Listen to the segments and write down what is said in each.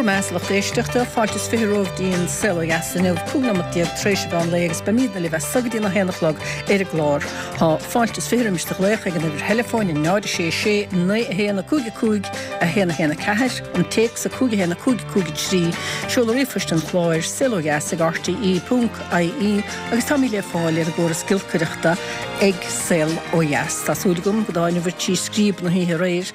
Go raibh maith agat a lucht éisteachta, fáilte is 20 romhaibh dtí'n Saol Ó Dheas inniu, 15 nóimeat tar éis an mheán lae agus beimídne libh as so go dtí'n 1 a chlog ar an gclár. Tá fáilte is 20 roimis do ghlaoch ag an uimhir theileafóin 0 6 6 9 1 5 5 1 1 4, an téacs 5 1 5 5 3, seoladh ríomhphoist an chláir, saolodheas ag rte ponc ie agus táimid le fáil ar an gcóras giolcaireachta ag Saol Ó Dheas. Tá súil agam go dtaitneobhair trí scríob na hoíche aréir.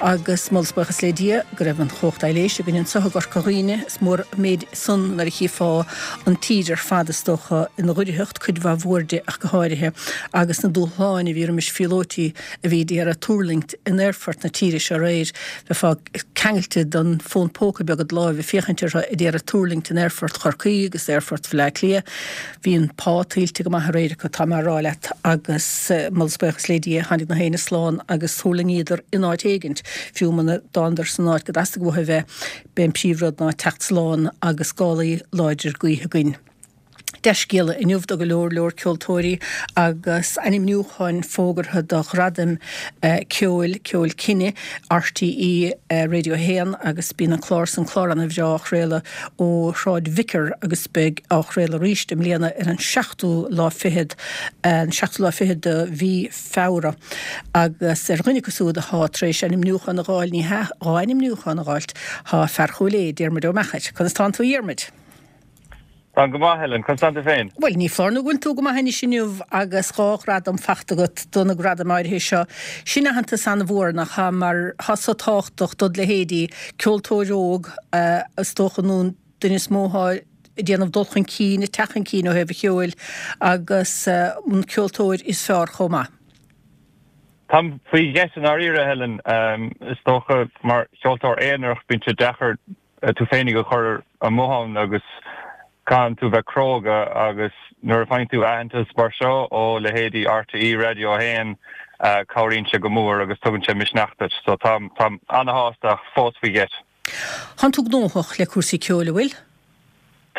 Agus moladh is buíochas le Dia go raibh an chumhacht aibhléise againn anseo i gCorca Dhuibhne. Is mór an méid san nuair a chífeá an tír ar fad is dócha ina dhoircheacht, cuid mhaith mhór di ach go háirithe, agus na dúshláin a bhí roimis phíolóití a bhí d'iarraidh tuirlingt in aerfort na tíre seo aréir. Bheifeá ceangailte don fón póca beag id láimh ag féachaint orthu ag iarraidh tuirlingt in aerfort Chorcaí agus aerfort Bhaile Átha Cliath. Bhí an pá tuillte go maith aréir acu, tá mé a rá leat, agus moladh is buíochas le Dia, tháinig na héinne slán agus thuirlingíodar in áit éigint, fiú muna dtánadar san áit go dteastaigh uathu a bheith. B'é an príomhrud ná teacht slán agus gálaí láidir gaoithe againn. Dea-scéala inniu do go leor leor ceoltóirí agus ainmniúcháin fógartha do ghradaim ceoil, Ceol Cine, RTÉ Radio 1 agus bíonn an clár san, clár ana-bhreá á chraoladh ó Shráid Vicar agus beidh á chraoladh arís i mbliana ar an seachtú lá fichead, an seachtú lá fichead de mhí Feabhra. Agus ar dhuine acu siúd athá tar éis ainmniúchán a dh'fháil, ní hea, dhá ainmniúchán a dh'fháilt, thá fear Chúil Aodha, Diarmuid Ó Meachair. Conas tánn tú a Dhiarmuid? Táim go maith, Helen. Conas tánn tú féin? Bhuel, ní foláir nó go bhfuil tú go maith anois inniu agus dhá ghradam fachta agat do na gradaim áirithe seo. Sin aitheantas an-mhór, nach ea, mar thá so tábhachtach dod leithéidí, ceoltóir óg, is dócha, nó an duine is mó athá ag déanamh dul chun cinn, ag teacht chun cinn ó thaobh an cheoil, agus an ceoltóir is fearr chomh maith. Táim faoi gheit i ndáiríre, Helen. Is dócha, mar cheoltóir aonarach, bíonn sé deacair tú féinig a chur amuigh ann agus caitheann tú bheith cróga agus nuair a faigheann tú aitheantas mar seo ó leithéidí RTÉ Radio 1 cabhraíonn sé go mór agus tugann sé misneach duit. So táim táim ana-shásta ach fós faoi gheit. Tánn tú gnóthach le cúrsaí ceoil, an bhfuil?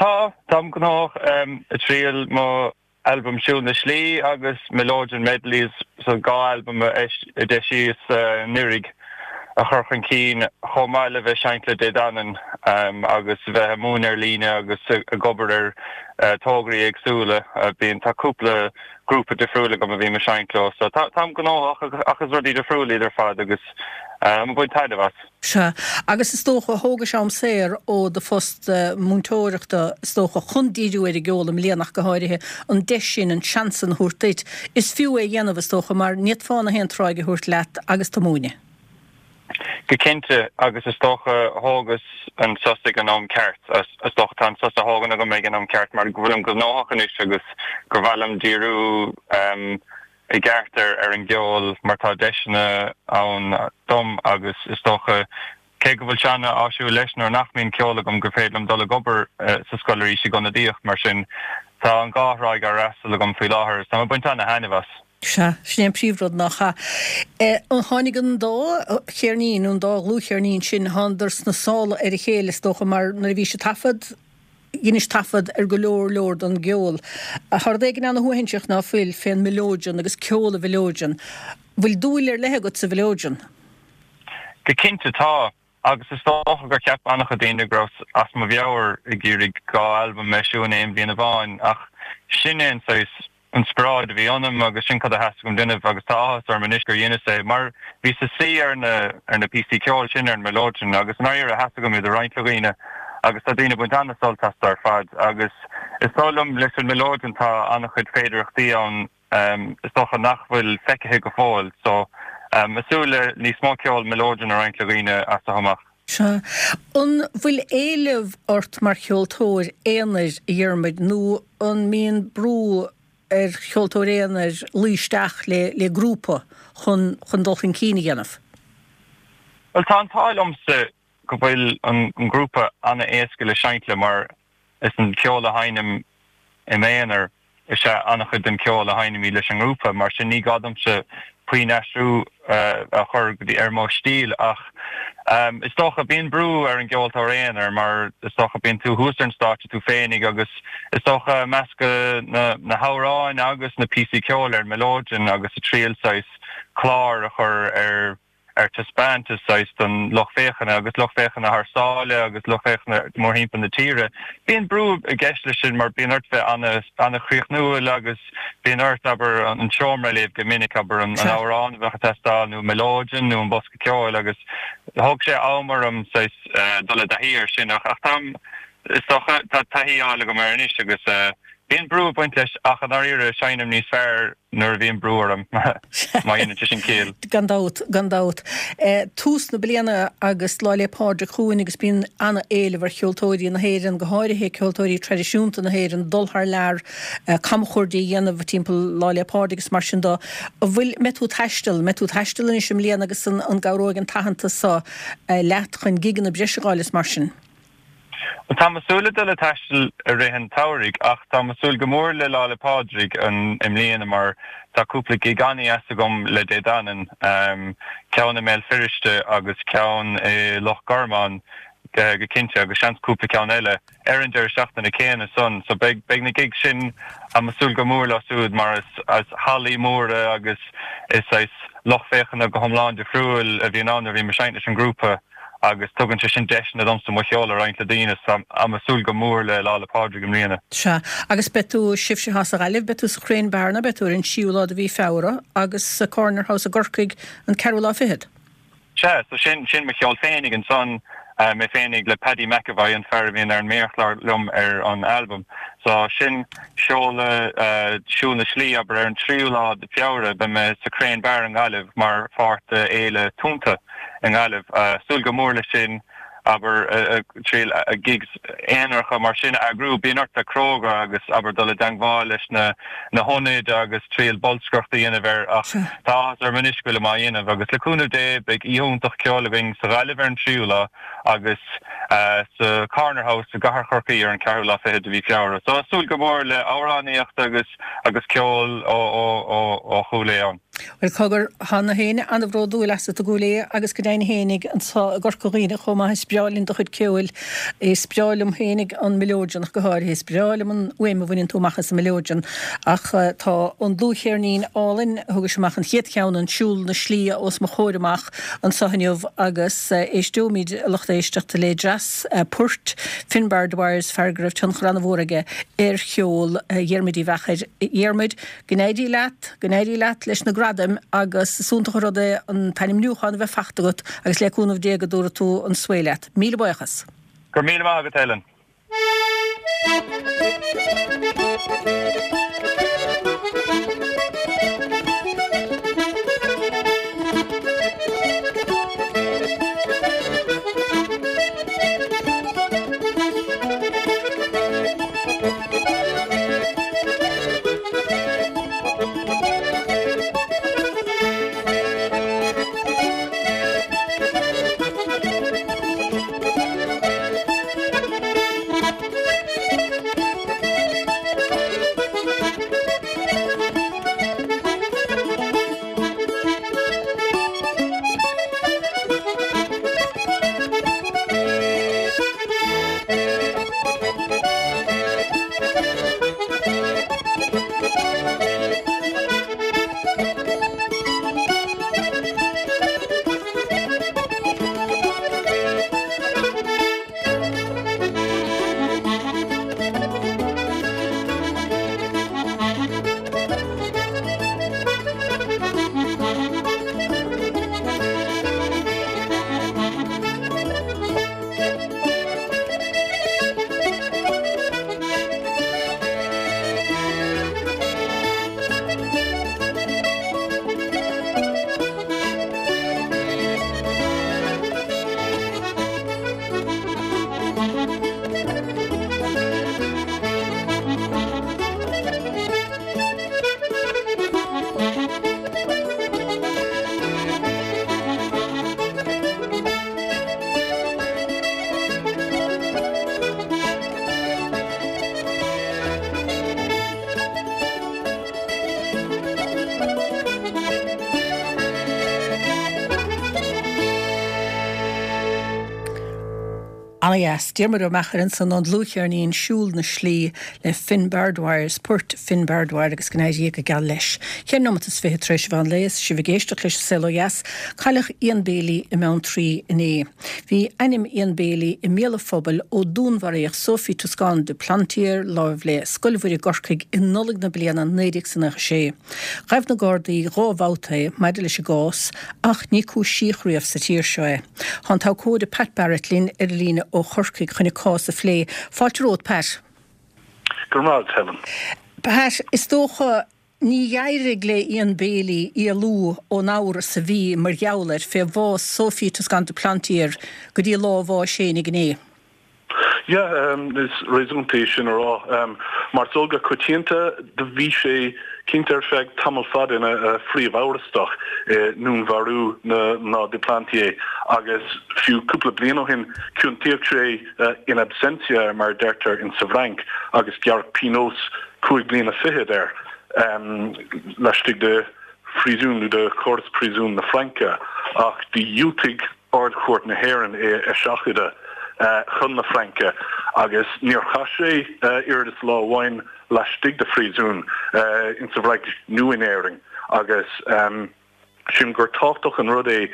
Tá, táim gnóthach ag triail mo albam Siúl na Slí agus Mileoidean Medleys, so 2 albam a d'eisíos anuraidh, a chur chun cinn, chomh maith le bheith seinnt le Dé Danann agus bheith ag múineadh ar líne agus ag obair ar tograí éagsúla. Bíonn, tá cúpla grúpa difriúil agam a bhím ag seinnt leo, so táim gnóthach ach is rudaí difriúla iad ar fad agus táim ag baint taitneamh as. Sea, agus is dócha, thógais am saor ó do phost múinteoireachta, is dócha, chun díriú ar an gceol i mbliana ach go háirithe, an deis sin, an seans sin a thabhairt duit. Is fiú é a dhéanamh, is dócha, mar ní fhéadfá na haon tráigh a thabhairt leat agus tú ag múineadh. Go cinnte, agus is dócha, thógas an sos ag an am ceart. Is dócha, tá an sos á thógaint agam ag an am ceart mar go bhfuilim gnóthach anois agus gur mhaith liom díriú i gceart ar an gceol mar tá deiseanna ann dom agus is dócha, cé go bhfuil sé ana-áisiúil leis nuair nach mbíonn ceol agam gur féidir liom dul ag obair sa scoil arís ag ionadaíocht mar sin tá an dhá thráigh á fhreastal agam faoi láthair agus táim ag baint ana-thaitneamh as. Sea, sin é an príomhrud nach ea? Tháinig an dá cheirnín, nó an dá dhlúthcheirnín sin, thánadar sna sála ar a chéile is dócha mar nuair a bhís ag taifead, Dheinis taifead ar go leor leor don gceol. Tá rud éigin ana-shuaithinseach ná fuil fén mileoidean agus ceol an mhileoidean. Bhfuil dúil ar leith agat sa mhileoidean? Go cinnte tá, agus is dócha gur cheap an-chuid daoine go rabhas as mo mheabhair ag iarraidh 2 albam a eisiú in aon bhliain amháin, ach sin é an saghas inspioráid a bhí ionam agus sin cad a theastaigh uaim déanamh agus tá áthas orm anois gur dheineas é mar bhíos ag suí ar na ar na píosaí ceoil sin ar an mileoidean agus i ndáiríre theastaigh uaim iad a roinnt le dhaoine agus tá daoine ag baint an-sult astu ar fad agus is dóigh liom leis an mileoidean tá an-chuid féidearthachtaí ann is dócha nach bhfuil feicthe go fóill so ag súil le níos mó ceol mileoidean a roinnt le dhaoine as seo amach. Sea. An bhfuil éileamh ort mar cheoltóir aonair, a Dhiarmuid, nó an mbíonn brú ar cheoltóir aonair luí isteach le le grúpa chun chun dul chun cinn a dhéanamh? Bhuel, tá an t-ádh liomsa go bhfuil an grúpa an-éasca le seinnt le mar is an ceol a sheinnim i m'aonar is ea an-chuid den cheol a sheinnimid leis an ngrúpa, mar sin ní gá domsa puinn aistriú a chur go dtí ar mo stíl ach is dócha bíonn brú ar an gceoltóir aonair mar is dócha bíonn tú thuas ar an stáitse tú féinig agus is dócha ag meascadh na na hamhráin agus na píosaí ceoil ar an mileoidean agus ag triail saghas clár a chur ar. ar taispeántas saghas don lucht féachana agus lucht féachana thar sáile agus lucht féachana mórthimpeall na tíre. Bíonn brú i gceist leis sin mar bíonn ort bheith an-chríochnúil agus bíonn ort, abair, an seomra a léamh go minic, abair, an amhrán a bheadh ag teastáil nó mileoidean nó an bosca ceoil agus thóg sé am orm saghas dul i dtaithí air sin ach táim, is dócha, tá taithí á fháil agam air anois agus bíonn brú ag baint leis ach i ndáiríre seinnim níos fearr nuair a bhíonn brú orm, má dhéanann sé sin ciall. Gan dabht, gan dabht. Tús na bliana agus Lá 'le Pádraig chugainn agus bíonn an-éileamh ar cheoltóirí na hÉireann, go háirithe ceoltóirí traidisiúnta na hÉireann, dul thar lear, camchuaird a dhéanamh timpeall Lá 'le Pádraig agus mar sin de. An bhfuil, mbeidh tú ag taisteal, mbeidh tú ag taisteal anois i mbliana agus an gcabhróidh an t-aitheantas seo leat chun gigeanna breise a fháil is mar sin? Bhuel, táim ag súil le dul ag taisteal i rith an tsamhraidh ach táim ag súil go mór le Lá 'le Pádraig i mbliana mar tá cúpla gig an-dheas agam le Dé Danann, ceann i mBéal Feirste agus ceann i Loch Garman go cinnte agus seans cúpla ceann eile ar an deireadh seachtaine céanna san. So beidh beidh na gigs sin, táim ag súil go mór leo siúd mar is is hallaí móra agus is saghas lucht féachana go hiomlán difriúil a bhíonn ann nuair a bhím ag seinnt leis an ngrúpa. agus tugann sé sin deiseanna domsa mo cheol a roinnt le daoine so táim ag súil go mór le Lá 'le Pádraig i mbliana. Sea, agus beidh tú, sibhse atá sa Ghaillimh, beidh tú sa Crane Bar nó beidh tú ar an tríú lá de mhí Feabhra agus sa Corner House i gCorcaigh an ceathrú lá fichead. Sea, so sin, sin mo cheol féinig ansan, mé féinig le Paddy McEvoy, an fear a bhíonn ar an méarchlár liom ar an albam. So sin seoladh Siúl na Slí, abair, ar an tríú lá de Feabhra, beidh mé sa Crane Bar i nGaillimh mar pháirt de Fhéile Tonnta. i nGaillimh. Súil go mór leis sin, abair, triail gigs aonaracha mar sin a eagrú. Bíonn ort bheith cróga agus, abair, dul i dteangmháil leis na na hionaid agus triail bolscaireacht a dhéanamh air ach tá áthas orm anois go bhfuilim á dhéanamh agus le cúnamh Dé beidh oíche iontach ceoil againn sa Ghaillimh ar an tríú lá agus sa Corner House i gCathair Chorcaí ar an ceathrú lá fichead de mhí Feabhra. So súil go mór le amhránaíocht agus agus ceol ó ó ó ó Chúil Aodha ann. Bhuel, cogar, tá na héinne an-bhródúil asat i gCúil Aodha agus go deimhin fhéinig anso i gCorca Dhuibhne chomh maith. Is breá linn do chuid ceoil. Is breá liom fhéinig an mileoidean ach go háirithe. Is breá liom an fhuaim a bhaineann tú amach as an mileoidean. Ach tá an dlúthcheirnín álainn, thugais amach an chéad cheann, an Siúl na Slí, os mo chomhair amach anso inniu agus éisteoimid, a lucht éisteachta, le dreas poirt Finbar Dwyer, fear go raibh tionchar an-mhór aige ar cheol Dhiarmuid Uí Mheachair. Dhiarmuid, Go n-éirí leat, go n-éirí leat leis na gradaim agus is iontach an rud é an t-ainmniúchán a bheith fachta agat agus le cúnamh Dé go dtabharfaidh tú an svae leat. Míle buíochas. Go raibh míle maith agat Helen. Ana-dheas. Diarmuid Ó Meachair ansan ón dlúthcheirnín Siúl na Slí le Finn Bardwire, poirt Finn Bardwire agus go n-éirí go geal leis. Cheithre nóimeat is 20 tar éis an mheán lae is sibh ag éisteacht leis An Saol Ó Dheas. Cailleadh Ian Bailey i mBeanntraí inné. Bhí ainm Ian Bailey i mbéal an phobail ó dúnmharaíodh Sophie Toscan du Plantier láimh le Scoil Mhuire i gCorcaigh i Nollaig na bliana 1996. Ghabh na Gardaí 2 bhabhta é maidir leis an gcás ach ní cúisíodh riamh sa tír seo é. Tá an t-abhcóide Pat Barrett linn ar an líne ó Chorcaigh chun an cás a phlé. Fáilte romhat, Pat. Go raibh maith agat, Helen. Pat, is dócha ní d'éirigh le Ian Bailey éalú ón amhras a bhí mar gheall air fé bhás Sophie Toscan du Plantier go dtí lá a bháis fhéinig inné. Yeah, is réasúnta é sin a rá. Mar is eol go coitianta, do bhí sé cinnte ar feadh tamall fada ina phríomh-amhrastach i ndúnmharú na mná du Plantier agus fiú cúpla bliain ó shin ciontaíodh sé in absentia, mar a deirtear in sa bhFrainc, agus gearradh pionós cúig bliana fichead air laistigh de phríosún nó de chóras príosúin na Fraince ach do dhiúltaigh Ard-Chúirt na hÉireann é a eiseachadadh chun na Fraince agus níor chaith sé oiread is lá amháin laistigh de phríosún insa bhFrainc nó in Éirinn agus sílim gur tábhachtach an rud é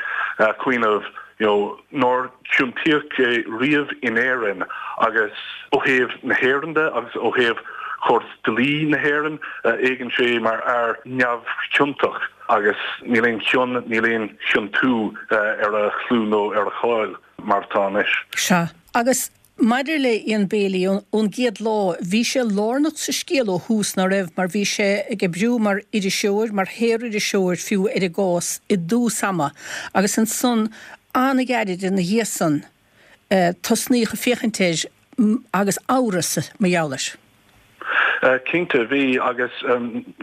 cuimhneamh you know nár ciontaíodh é riamh in Éirinn agus ó thaobh na hÉireann de agus ó thaobh chóras dlí na hÉireann éagann sé mar fhear neamhchiontach. Agus níl aon chion, níl aon chiontú ar a chlú nó ar a cháil mar atá anois. Sea. Agus maidir le Ian Bailey, ón gcéad lá, bhí sé lárnach sa scéal ó thús, ná raibh? Mar bhí sé ag oibriú mar iriseoir, mar shaoririseoir fiú, ar an gcás i dtús ama. Agus ansan, an-ghairid ina dhiaidh san, tosnaíodh ag féachaint air agus amhras mar gheall air. Cinnte, bhí, agus,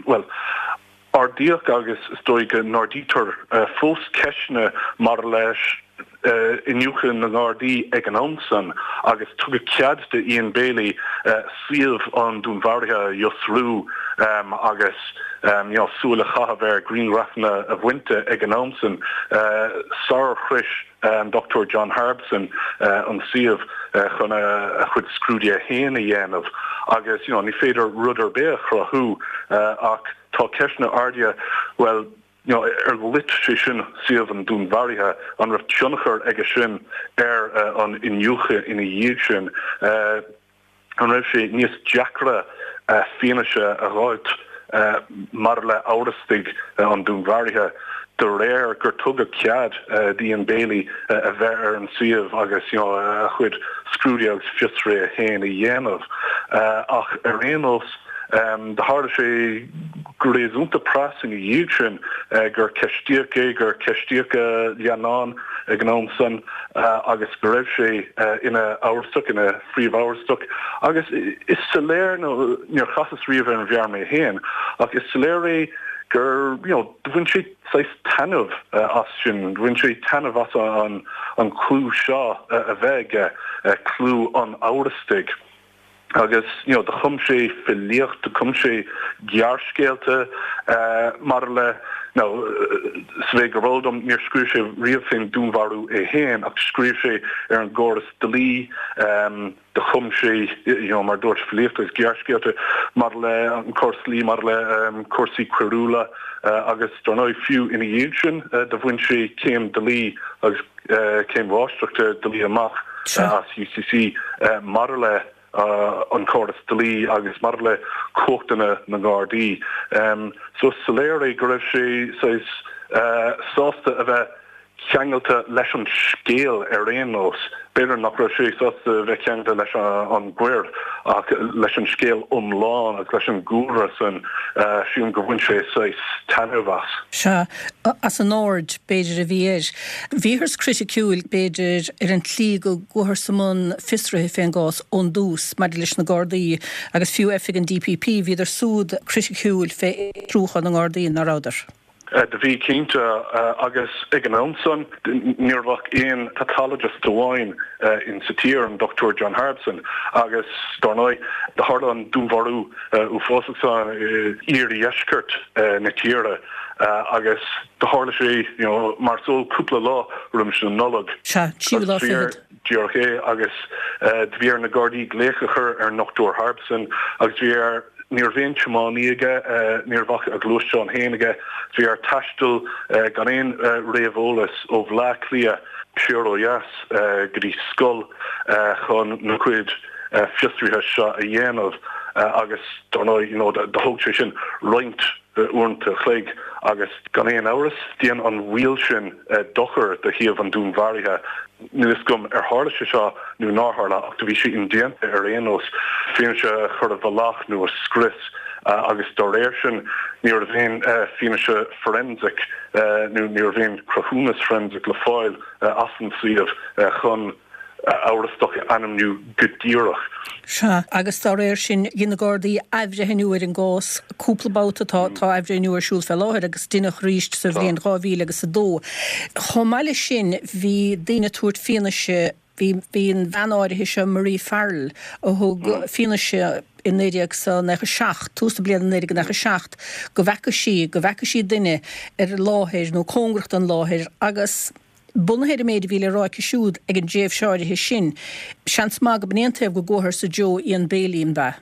bhuel, Ardaíodh agus is dóigh go n-ardaítear fós ceisteanna maidir leis iniúchadh na nGardaí ag an am san agus tugadh cead do Ian Bailey suíomh an dúnmharaithe a fhiosrú agus súil a chaitheamh ar ghrianghrafanna a bhaint de ag an am san sarar shrois an Dr John Harbison an suíomh chun a chuid scrúduithe féin a dhéanamh agus you know ní féidir rud ar bith a chruthú ach tá ceisteanna ardaithe bhuel you know ar loit sé sin suíomh an dúnmharaithe, an raibh tionchar aige sin ar an iniúchadh ina dhiaidh sin? An raibh sé níos deacra fianaise a dh'fháilt maidir le amhrastaigh an dúnmharaithe de réir gur tugadh cead d'Ian Bailey a bheith ar an suíomh agus a chuid scrúduithe agus fiosruithe féin a dhéanamh? Ach ar aon nós, Do tharla sé go réasúnta pras ina dhiaidh sin gur ceistíodh é, gur ceistíodh a leannán ag an am san agus go raibh sé ina amhrastach, ina phríomhamhrastach. Agus is soiléir, nó níor chasas riamh ar an bhfear mé féin, ach is soiléir é gur, you know, do bhain sé saghas taitneamh as sin, bhain sé taitneamh as an clú seo a bheith aige, clú an amhrastaigh. Agus you know do chum sé filíocht, do chum sé gearrscéalta maidir le, now sa mhéid gurb eol dom níor scríobh sé riamh fén dúnmharú é féin ach scríobh sé ar an gcóras dlí, do chum sé you know mar dúirt filíocht agus gearrscéalta maidir le an córas dlí, maidir le cúrsaí coiriúla agus dar ndóigh fiú ina dhiaidh sin do bhain sé céim dlí agus céim mháistreachta dlí amach as UCC maidir le an córas dlí agus maidir le cumhachtanna na nGardaí. So is soiléir é go raibh sé saghas sásta a bheith ceangailte leis an scéal ar aon nós. B'fhéidir nach raibh sé sásta a bheith ceangailte leis an gcoir ach leis an scéal iomlán agus leis an gcúlra san, sílim gur bhain sé saghas taitneamh as. Sea, as an aird, b'fhéidir, a bhí air. Bhíothas criticiúil, b'fhéidir, ar an tslí go gcuathas i mbun fiosraithe fén gcás ón dtús maidir leis na Gardaí agus fiú oifig an DPP, bhíodar súd criticiúil fé fhiosrúchán na nGardaí, ná rabhadar? Do bhí, cinnte, agus ag an am san ní raibh ach aon pathologist amháin in sa tír, an Dr John Harbison, agus dár ndóigh do tharla an dúnmharú uafásach san i iardheisceart na tíre agus do tharla sé, you know, mar is eol, cúpla lá roimis an Nollaig. Sea, tríú lá fichead. Díreach é, agus do bhí ar na Gardaí glaoch a chur ar an nDochtúir Harbison agus bhí air, ní raibh aon tiománaí aige, ní raibh ach a ghluaisteán féin aige, bhí air taisteal gan aon réamheolas ó Bhleá Cliath siar ó dheas go dtí scoil chun na cuid fiosruithe seo a dhéanamh agus dar ndóigh, you know, do thóg sé sin roinnt uaireanta a chloig agus gan aon amhras dhein an mhoill sin dochar do shuíomh an dúnmharaithe. Níl fhios agam ar tharla sé seo nó nár tharla ach do bhí sé indéanta ar aon nós fianaise a chur i bhfolach nó a scrios agus dá réir sin ní raibh aon fianaise forensic nó ní raibh aon cruthúnas forensic le fáil as an suíomh chun amhrastach a ainmniú go díreach. Sea, agus dá réir sin, dhein na Gardaí athbhreithniú ar an gcás cúpla babhta, tá tá athbhreithniú ar siúl fé láthair agus deineadh arís sa bhliain 2000 agus 2. Chomh maith leis sin, bhí daoine ag tabhairt fianaise, bhí bhí an bhean áirithe seo, Marie Farrell, a thug fianaise i 1997, tús na bliana 1997, go bhfeaca sí, go bhfeaca sí duine ar an láthair nó cóngarach don láthair agus, Bunaithe ar an méid a bhí le rá aici siúd ag an dtréimhse áirithe sin, seans maith go b'in é an taobh go gcuatharsa Joe Ian Bailey, an b'ea?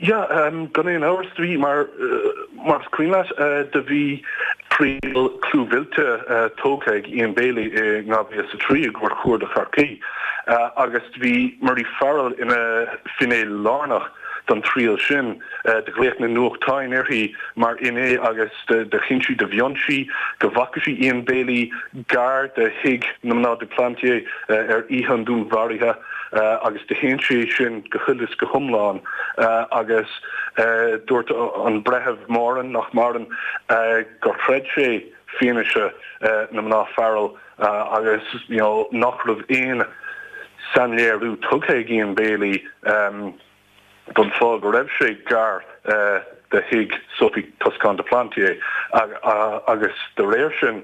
Yeah, gan aon amhras, do bhí, mar, mar is cuimhin leat, do bhí triail clúmhillte tógtha ag Ian Bailey i 2003 i gCúirt Chuarda Chorcaí agus do bhí Marie Farrell ina finné lárnach don triail sin. Do ghlaoch na nuachtáin uirthi mar fhinné agus do chinn sí, do mhion sí go bhfaca sí Ian Bailey gar do thigh na mná du Plantier ar oíche an dúnmharaithe agus do shéan sé sin go huile is go hiomlán agus dúirt an Breitheamh Moran, nach maireann, gur chreid sé fianaise na mná Farrell agus you know nach raibh aon sainléiriú tugtha ag Ian Bailey. don fáth go raibh sé gar do thigh Sophie Toscan du Plantier agus de réir sin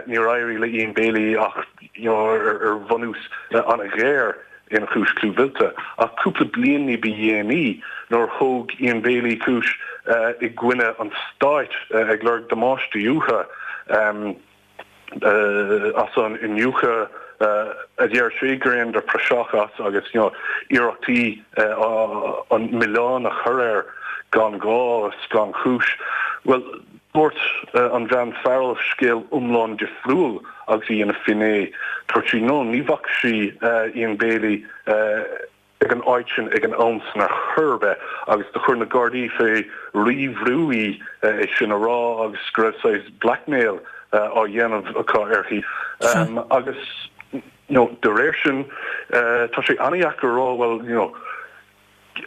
níor éirigh le Ian Bailey ach ar bhunús an-ghéar ina chúis clúmhillte. Ach cúpla bliain ní ba dhéanaí nuair a thóg Ian Bailey cúis i gcoinne an stáit ag lorg damáistí uathu, as an iniúchadh a deir sé gur dheineadar praiseach as agus iarrachtaí an milleán a chur air gan ghá is gan chúis. Bhuel, dúirt an bhean Farrell scéal iomlán difriúil agus í ina finné. Dúirt sí no, ní bhfaca sí Ian Bailey ag an áit sin ag an am san ar chor ar bith agus do chuir na Gardaí fé rí-bhrú í é sin a rá agus go raibh saghas blackmail á dhéanamh acu uirthi agus you know de réir sin tá sé an-dheacair a rá bhuel you know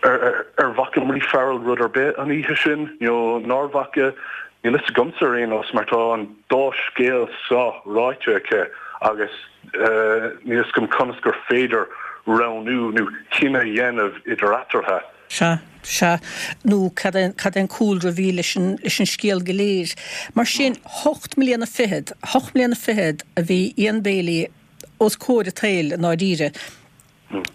ar bhfaca Marie Farrell rud ar bith an oíche sin you know nár bhfaca níl fhios agamsa ar aon nós mar tá an dá scéal seo ráite aici agus Níl fhios agam conas gur féidir roghnú nó cinneadh a dhéanamh idir eatarthu. Sea, sea. Nó cad é, cad é an cúlra a bhí leis an, leis an scéal go léir. Mar sin, hocht mbliana fichead, hocht mbliana fichead a bhí Ian Bailey os comhair an tsaoil i ndáiríre.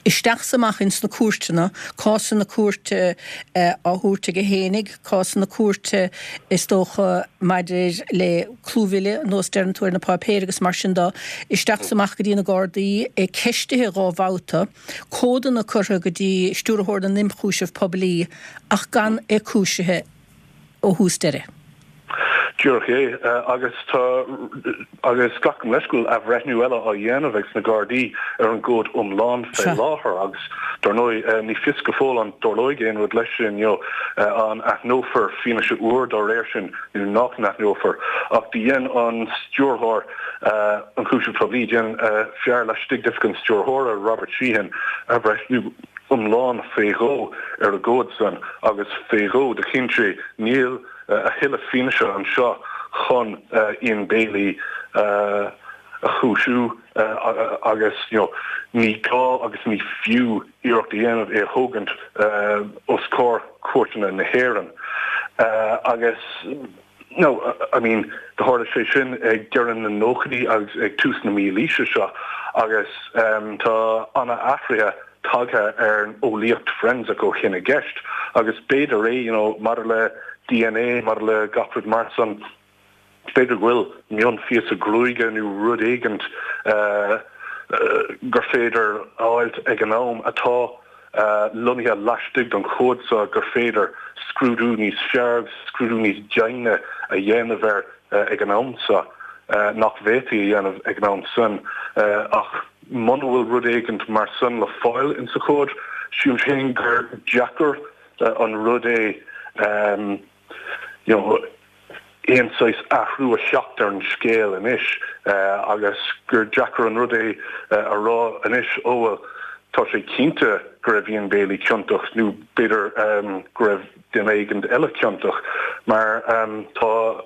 Isteach 's amach ins na cúirteanna, cásanna cúirte á thabhairt aige fhéinig, cásanna cúirte is dócha maidir le clúmhilleadh, nós deireann tú ar na páipéir agus mar sin de, isteach 's amach go dtí na Gardaí, é ceistithe dhá bhabhta, comhadanna curtha go dtí Stiúrthóir na nImchúiseamh Poiblí ach gan é cúisithe. ó thús deireadh. Díreach é. Agus tá, agus glacaim leis go bhfuil athbhreithniú eile á dhéanamh ag na Gardaí ar an gcomhad iomlán fé láthair agus dar ndóigh ní fios go fóill an dtarlóidh aon rud leis sin, you know, an aithneofar fianaise úr dá réir sin nó nach n-aithneofar. Ach do dhein an Stiúrthóir Ionchúiseamh Poiblí, dhein fear laistigh d'oifig an Stiúrthóra, Robert Sheehan, athbhreithniú iomlán fé dhó ar an gcomhad san agus fé dhó do chinn sé níl a thuilleadh fianaise anseo chun Ian Bailey a chúisiú agus you know ní gá agus ní fiú iarracht a dhéanamh é a thógaint os comhair cúirteanna na hÉireann agus No, I mean, do tharla sé sin ag deireadh na nóchaidí agus ag tús na mílaoise seo agus tá ana-athruithe tagtha ar an eolaíocht forensic ó shin i gceist agus b'fhéidir é, you know, maidir le DNA, maidir le gach rud mar san, b'fhéidir go bhfuil mionphíosa gruaige nó rud éigint. gur féidir a fháilt ag an am atá lonnaithe laistigh den chomhad seo gur féidir scrúdú níos fearr agus scrúdú níos deimhne a dhéanamh air ag an am seo nach bhféadfaí a dhéanamh ag an am san. Ach muna bhfuil rud éigint mar san le fáil insa chomhad, sílim féin gur deacair an rud é you know, aon saghas athrú a theacht ar an scéal anois agus gur deacair an rud é a rá anois, ó bhuel, tá sé cinnte go raibh Ian Bailey ciontach nó b'fhéidir go raibh duine éigin eile ciontach mar tá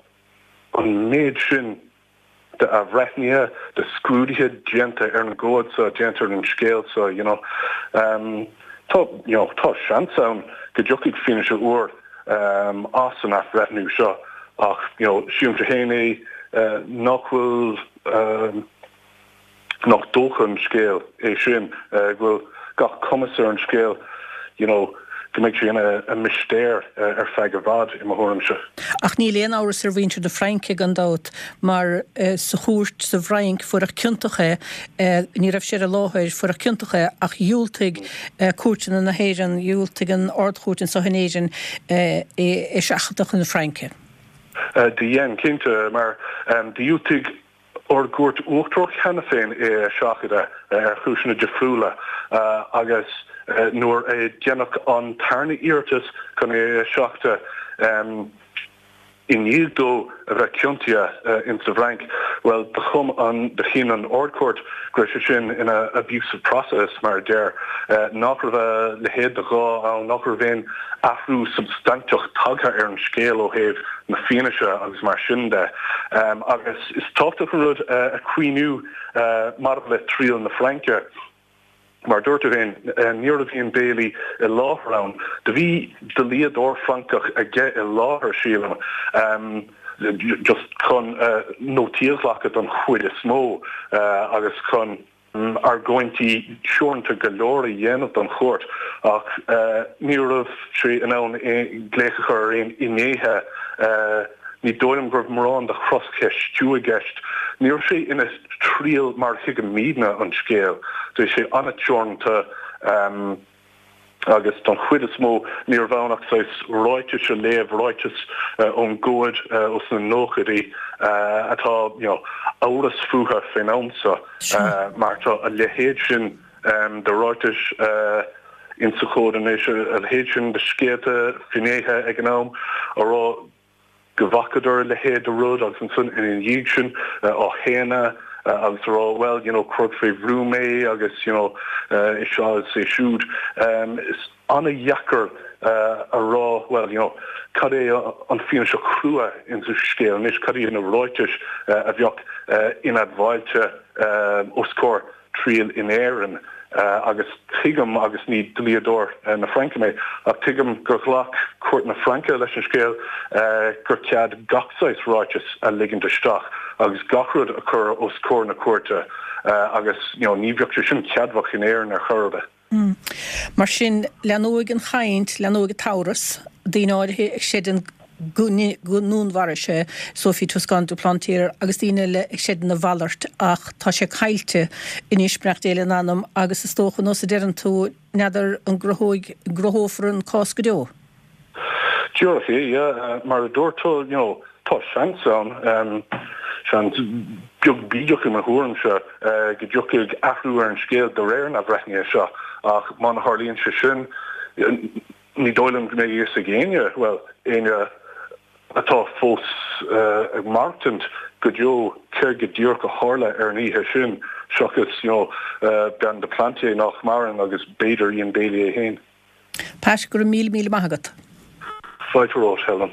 an méid sin de athbhreithnithe, de scrúduithe déanta ar an gcomhad seo, déanta ar an scéal seo, you know. Tá, you know, tá seans ann go dtiocfaidh fianaise úr as an athbhreithniú seo ach, you know, sílimse féin é nach bhfuil, nach dócha an scéal é sin, go bhfuil gach cumas ar an scéal, you know, go mbeidh sé ina mistéir ar feadh i bhfad, i mo thuairimse. Ach níl aon amhras ar mhuintir na Fraince, gan dabht, mar sa chúirt sa bhFrainc fuaireadh ciontach é, ní raibh sé ar an láthair, fuaireadh ciontach é ach dhiúltaigh cúirteanna na hÉireann, dhiúltaigh an Ard-Chúirt anseo in Éirinn é a sheachadadh chun na Fraince. Do dhein, cinnte, mar dhiúltaigh ár gCúirt Uachtarach cheana féin é a sheachadadh ar chúiseanna difriúla agus nuair a deineadh an tarna iarratas chun é a sheachadadh i ndiaidh dó a bheith ciontaithe in sa bhFrainc, bhuel, do chum an, do chinn an Ard-Chúirt go raibh sé sin ina abuse of process, mar a deir, nach raibh a leithéid de ghá ann, nach raibh aon athrú substainteach tagtha ar an scéal ó thaobh na fianaise agus mar sin de. Agus is tábhachtach an rud a chuimhniú maidir le triail na Fraince, mar a dúirt tú féin, ní raibh Ian Bailey i láthair ann. Do bhí dlíodóir Francach aige i láthair, sílim, just chun nótaí a ghlacadh don chuid is mó agus chun. argóintí teoranta go leor a dhéanamh don chúirt ach ní raibh sé in ann glaoch a chur ar aon fhinnéithe. Ní dóigh liom go raibh mórán de chroscheistiú i gceist. Ní raibh sé ina thriail mar a thuigimidne an scéal. Bhí sé an-teoranta. agus don chuid is mó ní raibh ann ach saghas ráitis a léamh, ráitis ón gcomhad ós na nóchaidí atá you know amhras fúthu fén am seo mar tá a leithéid sin de ráitis insa chomhad anois, a leithéid sin de scéalta, finnéithe ag an am a rá go bhfacadar a leithéid de rud agus ansan ina dhiaidh sin á shéanadh agus a rá well you know cuireadh fé bhrú mé agus you know é seo is é siúd. Is an-dheacair a rá well you know cad é an fianaise chrua insa scéal anois, cad iad na ráitis a bheadh inadmháilte os comhair triail in Éirinn agus tuigim, agus ní dlíodóir na Fraince mé, ach tuigim gur ghlac cúirt na Fraince leis an scéal gur cead gach saghas ráiteas a ligint isteach agus gach rud a chur os comhair na cúirte agus you know ní bheadh sé sin ceadmhach in Éirinn ar chor ar bith. Mar sin, leanóidh an chaint, leanóidh an t-amhras, daoine áirithe ag creidiúint go ndúnmharaigh sé Sophie Toscan du Plantier agus daoine eile ag creidiúint a mhalairt ach tá sé caillte anois, beannacht Dé lena anam, agus is dócha, nós a deireann tú, n'fheadar an gcruthóidh, gcruthófar an cás go deo. Díreach é, yeah. Mar a dúirt tú, you know, tá seans ann, seans beag bídeach i mo thuairimse, go dtiocfaidh athrú ar an scéal de réir na athbhreithnithe seo ach má tharlaíonn sé sin, ní dóigh liom go mbeidh a fhios ag éinne, bhuel, éinne atá fós ag maireachtaint go deo céard go díreach a tharla ar an oíche sin seachas, you know, bean du Plantier nach maireann agus b'fhéidir Ian Bailey é féin. Pat, go raibh míle míle maith agat. Fáilte romhat, Helen.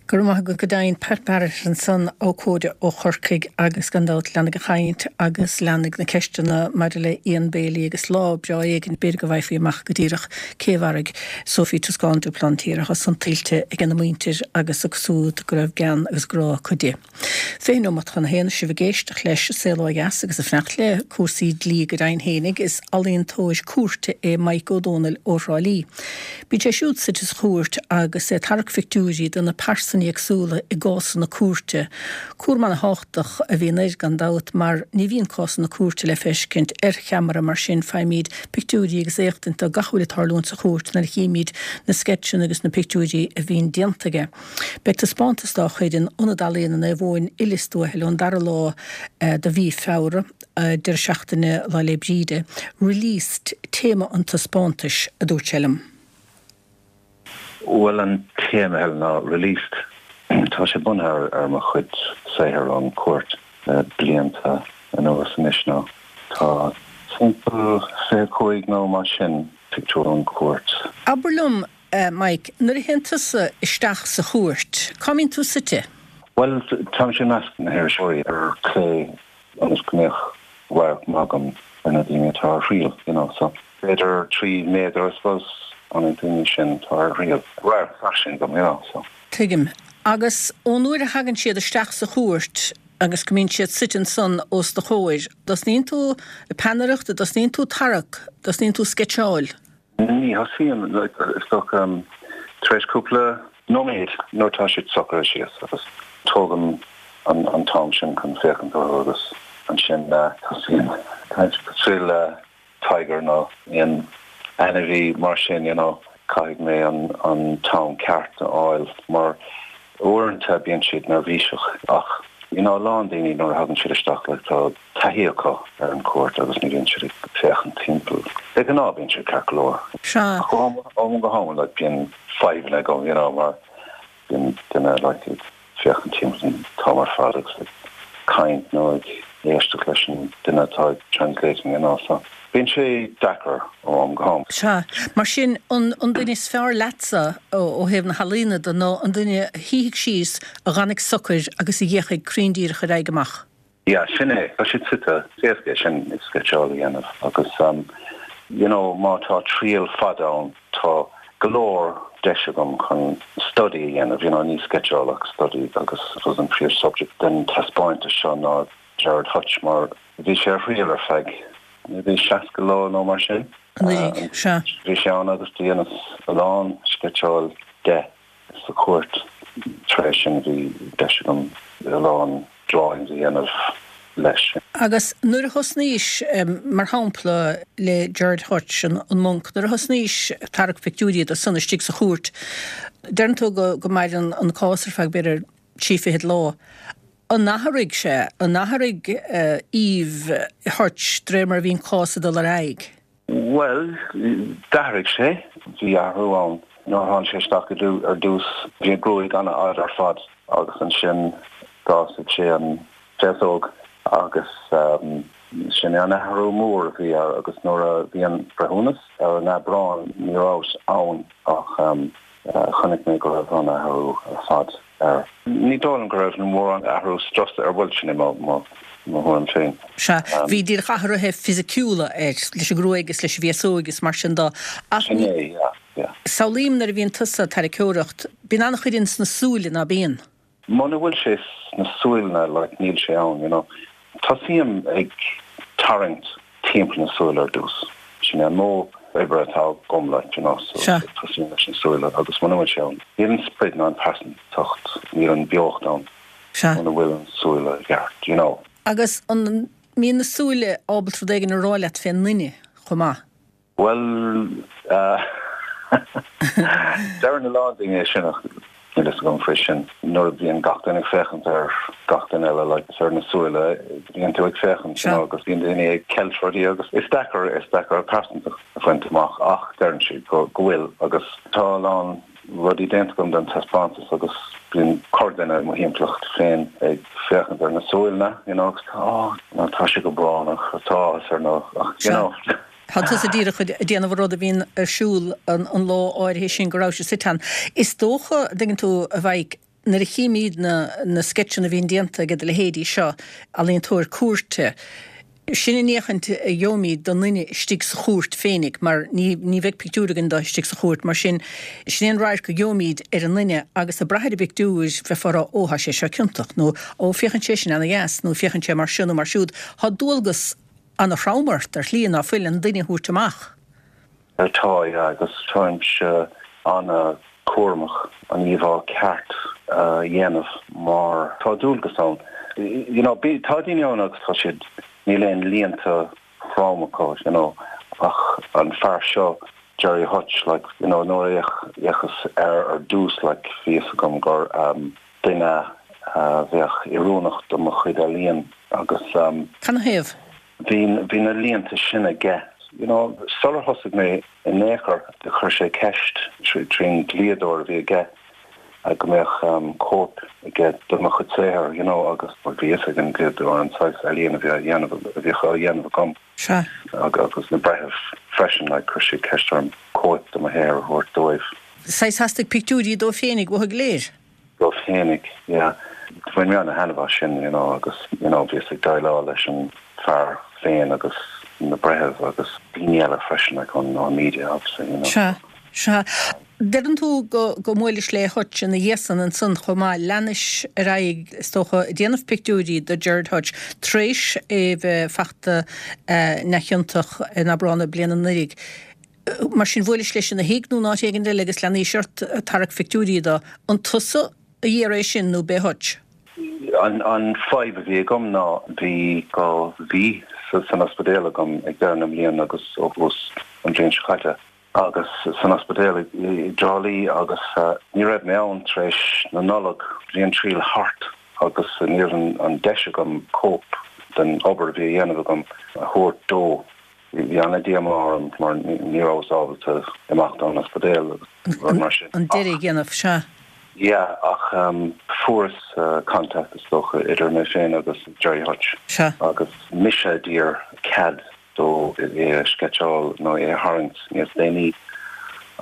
Go raibh maith agat go deimhin, Pat Barrett ansan, abhcóide ó Chorcaigh agus gan dabht leanfaidh an chaint agus leanfaidh na ceisteanna maidir le Ian Bailey agus lá breá éigin b'fhéidir go bhfaighfí amach go díreach cé a mharaigh Sophie Toscan du Plantier atá san tuillte ag ina muintir agus acu siúd go raibh gean agus grá acu di. 20 nóimeat chun a haon, sibh ag éisteacht leis Saol Ó Dheas agus ag fanacht le cúrsaí dlí go deimhin fhéinig. Is ealaíontóir cúirte é Mike Ó Dónaill ó Thrá Lí. Bíonn sé siúd suite sa chúirt agus é ag tarrac phictiúirí de na pearsain. cásanna éagsúla i gcásanna cúirte. Cúram ana-thábhachtach a bhíonn air, gan dabht, mar ní bhíonn cásanna cúirte le feiscint ar cheamara, mar sin faighimid pictiúirí agus éachtaint de gach a bhfuil ag tarlúint sa chúirt nuair a chímid na sceitseanna agus na pictiúirí a bhíonn déanta aige. Beidh taispeántas dá chuid in Ionad Ealaíona Naomh Eoin i Lios Tuathail ón dara lá de mhí Feabhra, deireadh seachtaine Lá 'le Bríde. Released téama an taispeántais, a dúirt sé liom. Bhuel an téama Helen ná Released. Tá sé bunaithe ar mo chuid saothair ón chúirt le blianta anuas anois nó tá timpeall 25 nó mar sin pictiúr ón chúirt. Abair liom, Mike, nuair a théann tusa isteach sa chúirt, cá mbíonn tú suite? Bhuel, táimse i measc na hiriseoirí ar clé ionas go mbeadh radharc maith agam ar na daoine atá ar thriail, you know, so b'fhéidir 3 méadar, I suppose, ó na daoine sin atá ar thriail. Radharc fairsing agam, you know, so. Tuigim. Agus ón uair a thagann siad isteach sa chúirt agus go mbíonn siad suite ansan os do chomhair, dtosnaíonn tú ag peannaireacht, a dtosnaíonn tú ag tarrac, dtosnaíonn tú ag sceitseáil? Ní thosaím, is dócha, tar éis cúpla nóiméad nuair atá siad socraithe síos agus tógaim an t-am sin chun féachaint orthu agus ansin tosaím caint cosúil le tiger nó aon ainmhí mar sin, you know, caithfidh mé an t-am ceart a fháil mar uaireanta bíonn siad neirbhíseach ach you know a lán daoine nuair a thagann siad isteach like tá taithí acu ar an chúirt agus ní bhíonn siad ag féachaint timpeall. De ghnáth bíonn siad ceart go leor. Sea. Ach ó am go ham like bíonn fadhbanna agam you know mar bíonn duine like ag féachaint timpeall an t-am ar fad agus ag caint nó ag éisteacht leis an duine atá ag translating you know so bíonn sé deacair ó am go ham. Sea. Mar sin an duine is fearr leatsa ó thaobh na healaíona de ná an duine a shuífidh síos, a dh'fhanfaidh socair agus a dh'fhéachfaidh cruinn díreach ar aghaidh amach. Yeah, sin é. Tá siad suite. Is éasca é sin sceitseáil a dhéanamh agus you know má tá triail fada ann tá go leor deis agam chun study a dhéanamh, you know ní sceitseáil ach study agus I suppose an príomh subject den taispeántas seo ná Gerard Hutch mar bhí sé ar thriail ar feadh maybe 60 lá nó mar sin. Anuraidh, sea. Bhí sé ann agus do dheineas a lán sceitseáil de. sa chúirt. Tar éis sin bhí deis agam a lán drawings a dhéanamh leis. Agus nuair a thosnaís, mar shampla, le Gerard Hutch, an Monk, nuair a thosnaís ag tarrac pictiúirí de san istigh sa chúirt, deireann tú go maireann an cás ar feadh b'fhéidir trí fichid lá. An athraigh sé, an athraigh aoibh Hutch de réir mar a bhí an cás ag dul ar aghaidh? Bhuel, d'athraigh sé. Bhí athrú ann. Nuair a tháinig sé isteach ar dtús, bhí a ghruaig an-fhada ar fad agus ansin d'fhásaigh sé an féasóg agus sin é an athrú mór a bhí air agus nuair a bhí an breithiúnas ar an Aibreán ní rabhas ann ach chonaic mé go raibh an athrú ar fad air. Ní dóigh liom go raibh mórán athrú strus air, bhuel sin é mo thuairim féin. Sea, bhí díreach athruithe fisiciúla air, leis an ngruaig is leis an bhféasóig is mar sin de. Ach Sin é, yeah, yeah. Samhlaím nuair a bhíonn tusa ag tarraiceoireacht, bíonn an-chuid ins na súile, ná bíonn? Muna bhfuil sé sna súile, like, níl sé ann, you know. Tosaím ag tarraingt timpeall na súile ar dtús. Sin é an modh oibre atá agam, like, you know, so tosaím leis na súile agus muna bhfuil sé ann, níl an sprid ná an pearsantacht, níl an beocht ann muna bhfuil an súile i gceart, you know. Agus an mbíonn na súile ábalta rud éigin a rá leat fén nduine chomh maith? Bhuel, deireann a lán daoine é sin ach níl fhios agam faoi sin. Nuair a bhíonn gach duine ag féachaint ar gach duine eile, like, is ar na súile a bhíonn tú ag féachaint, you know, agus bíonn daoine ag ceilt rudaí agus is deacair, is deacair pearsantacht a bhaint amach ach deireann siad go, go bhfuil agus tá a lán rudaí déanta agam don taispeántas agus bíonn corrdhuine i mo thimpeallacht féin ag féachaint ar na súile, you know, agus tá, oh, tá sé go brónach, tá áthas air nó, you know. Tá tusa díreach ag déanamh an rud a bhíonn ar siúl an lá áirithe sin go raibh sé suite ann. Is dócha, an dtuigeann tú, a Mhaidhc, nuair a chímíd na na sceitseanna a bhíonn déanta ag do leithéidí seo, ealaíontóir cúirte, sin an fhéachaint a gheobhaimíd don nduine istigh sa chúirt féinig mar ní ní bheidh pictiúr againn de istigh sa chúirt mar sin, sin é an radharc a gheobhaimíd ar an nduine agus ag brath ar an bpictiúr bheifeá ag rá ó tá sé seo ciontach nó ó féachann sé sin ana-dheas nó féachann sé mar seo nó mar siúd. Tá dualgas ana-throm ort ar shlí ná fuil an duine a thabhairt amach. Tá, yeah, agus táimse ana-chúramach an íomhá ceart. a dhéanamh mar tá dualgas ann. You know, tá daoine ann agus tá siad, níl aon líonta throm acu, you know, ach an fear seo, Gerry Hutch, like, you know, nuair a fhéachas air ar dtús, like, bhí fhios agam gur duine a bheadh oiriúnach do mo chuid ealaíon agus. Canathaobh? Bhí, bhí na líonta sin aige. You know, sular thosaigh mé in aon chor, chuir sé ceist trín dlíodóir a bhí aige go mbeadh cóip aige de mo chuid saothair, you know, agus bhí fhios ag an dlíodóir an saghas ealaíon a bhí á dhéanamh, a bhíodh á dhéanamh agam. Sea. Agus na breithimh freisin, like, chuir siad ceist orm cóip de mo shaothar a thabhairt dóibh. Saghas theastaigh pictiúirí dó féinig uathu go léir. Dóibh féinig, yeah. Bhain mé ana-thaitneamh as sin, you know, agus, you know, bhíos ag déileáil leis an fear féin agus na breithimh agus daoine eile freisin, like, ón, ón media, obviously, you know. Sea, sea. Deireann tú go, go mbuailis le Hutch ina dhiaidh san ansan chomh maith. Leanais ar aghaidh, is dócha, ag déanamh pictiúirí do Gerard Hutch tar éis é bheith fachta neamhchiontach in Aibreán na bliana anuraidh. Mar sin, bhuailis leis ina thigh nó in áit éigin eile agus leanaís ort ag tarrac phictiúirí dó. An tusa a d'iarr é sin nó b'é Hutch? An fadhb a bhí agam ná bhí 2 mhí san ospidéal agam ag deireadh na mbliana agus ó thús an bhliain seo caite agus san ospidéal i dTrá Lí agus ní raibh mé ann tar éis na Nollag. Bhí an triail thart agus ní raibh an deis agam cóip den obair a bhí a dhéanamh agam a thabhairt dó. Bhí ana-dhíomá orm mar ní rabhas ábalta imeacht ón ospidéal agus rud mar sin. An deireadh a dhéanamh, sea. Yeah, ach fuaireas contact is dócha idir mé féin agus Gerry Hutch. Sea. Agus mise a d'iarr cead dó é a sceitseáil nó é a tharraingt níos déanaí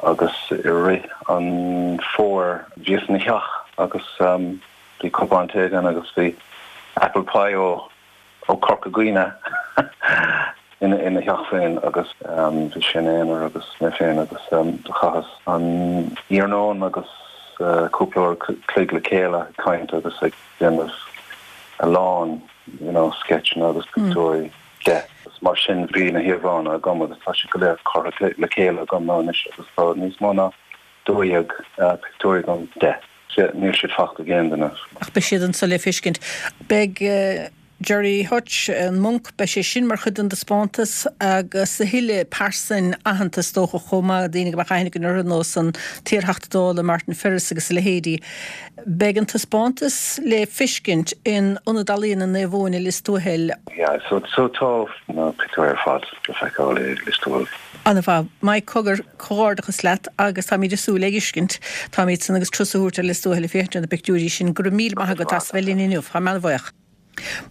agus i rith an fómhair bhíos ina theach agus bhí cupán tae againn agus bhí apple pie ó ó Corca Dhuibhne ina theach féin agus bhí sé ina aonar agus mé féin agus do chaitheas an iarnóin agus cúpla uair a chloig le chéile ag caint agus ag déanamh a lán you know sceitseanna agus pictiúirí de. Agus mar sin bhí na híomhánna agam agus tá siad go léir curtha le chéile agam anois agus tá níos mó ná 12 pictiúr agam de. Níl siad fachta ag aon duine. Ach beidh siad anso le feiscint. Beidh Gerry Hutch, an Monk, beidh sé sin mar chuid den dtaispeántas agus a thuilleadh pearsain aitheanta is dócha chomh maith, daoine go mbeadh aithne againn orthu, nós an t-iarTheachta Dála Martin Ferris agus a leithéidí. Beidh an taispeántas le feiscint in Ionad Ealaíona Naomh Eoin i Lios Tuathail. Yeah, so so tá na pictiúirí ar fad le feiceáil i Lios Tuathail. Ana-mhaith. Mike Cogar, comhghairdeachas leat agus táimid ag súil le feiscint. Táimid san agus turas a thabhairt ar Lios Tuathail ag féachaint ar na pictiúirí sin. Go raibh míle maith agat as bheith linn inniu. Táim an-bhuíoch.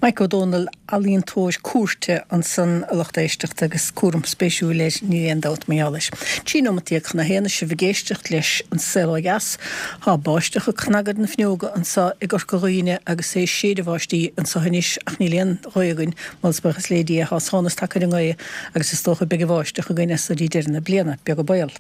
Mike Ó Dónaill, ealaíontóir cúirte ansan a lucht éisteachta agus cúram spéisiúil air, níl aon dabht mar gheall air. 13 nóimeat chun a haon is sibh ag éisteacht leis An Saol Ó Dheas. Tá báisteach ag cnagadh ar na fuinneoga anso i gCorca Dhuibhne agus é ag séideadh báistí anso anois ach níl aon ghaoth againn, moladh is buíochas le Dia, tá sonas tagtha ar an ngaoth agus is dócha beidh an bháisteach againn as so dtí deireadh na bliana, beag an baol.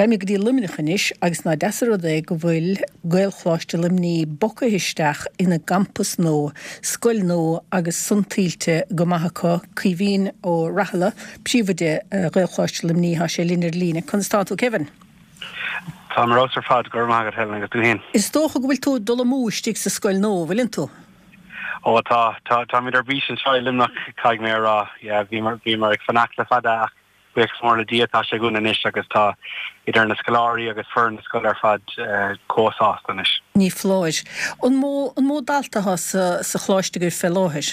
Raghaimid go dtí Luimneach anois agus ná deas an rud é go bhfuil Gaelcholáiste Luimnigh bogtha isteach ina gcampas nua, scoil nua agus san tuillte go maith acu. Caoimhín Ó Rathaille, príomhoide Ghaelcholáiste Luimnigh, tá sé linn ar líne. Conas tá tú, Kevin? Táim ar fheabhas ar fad, go raibh maith agat Helen agus tú féin? Is dócha go bhfuil tú ag dul amú istigh sa scoil nua, bhfuileann tú? Ó tá, tá, táimid ar bís anseo i Luimneach, caithfidh mé a rá. Yeah, bhíomar, bhíomar ag fanacht le fada ach buíochas mór le Dia tá sé againn anois agus tá idir na scoláirí agus foireann na scoile ar fad chomh sásta anois. Ní foláir. An mó, an mó dalta atá sa, sa choláiste agaibh fé láthair?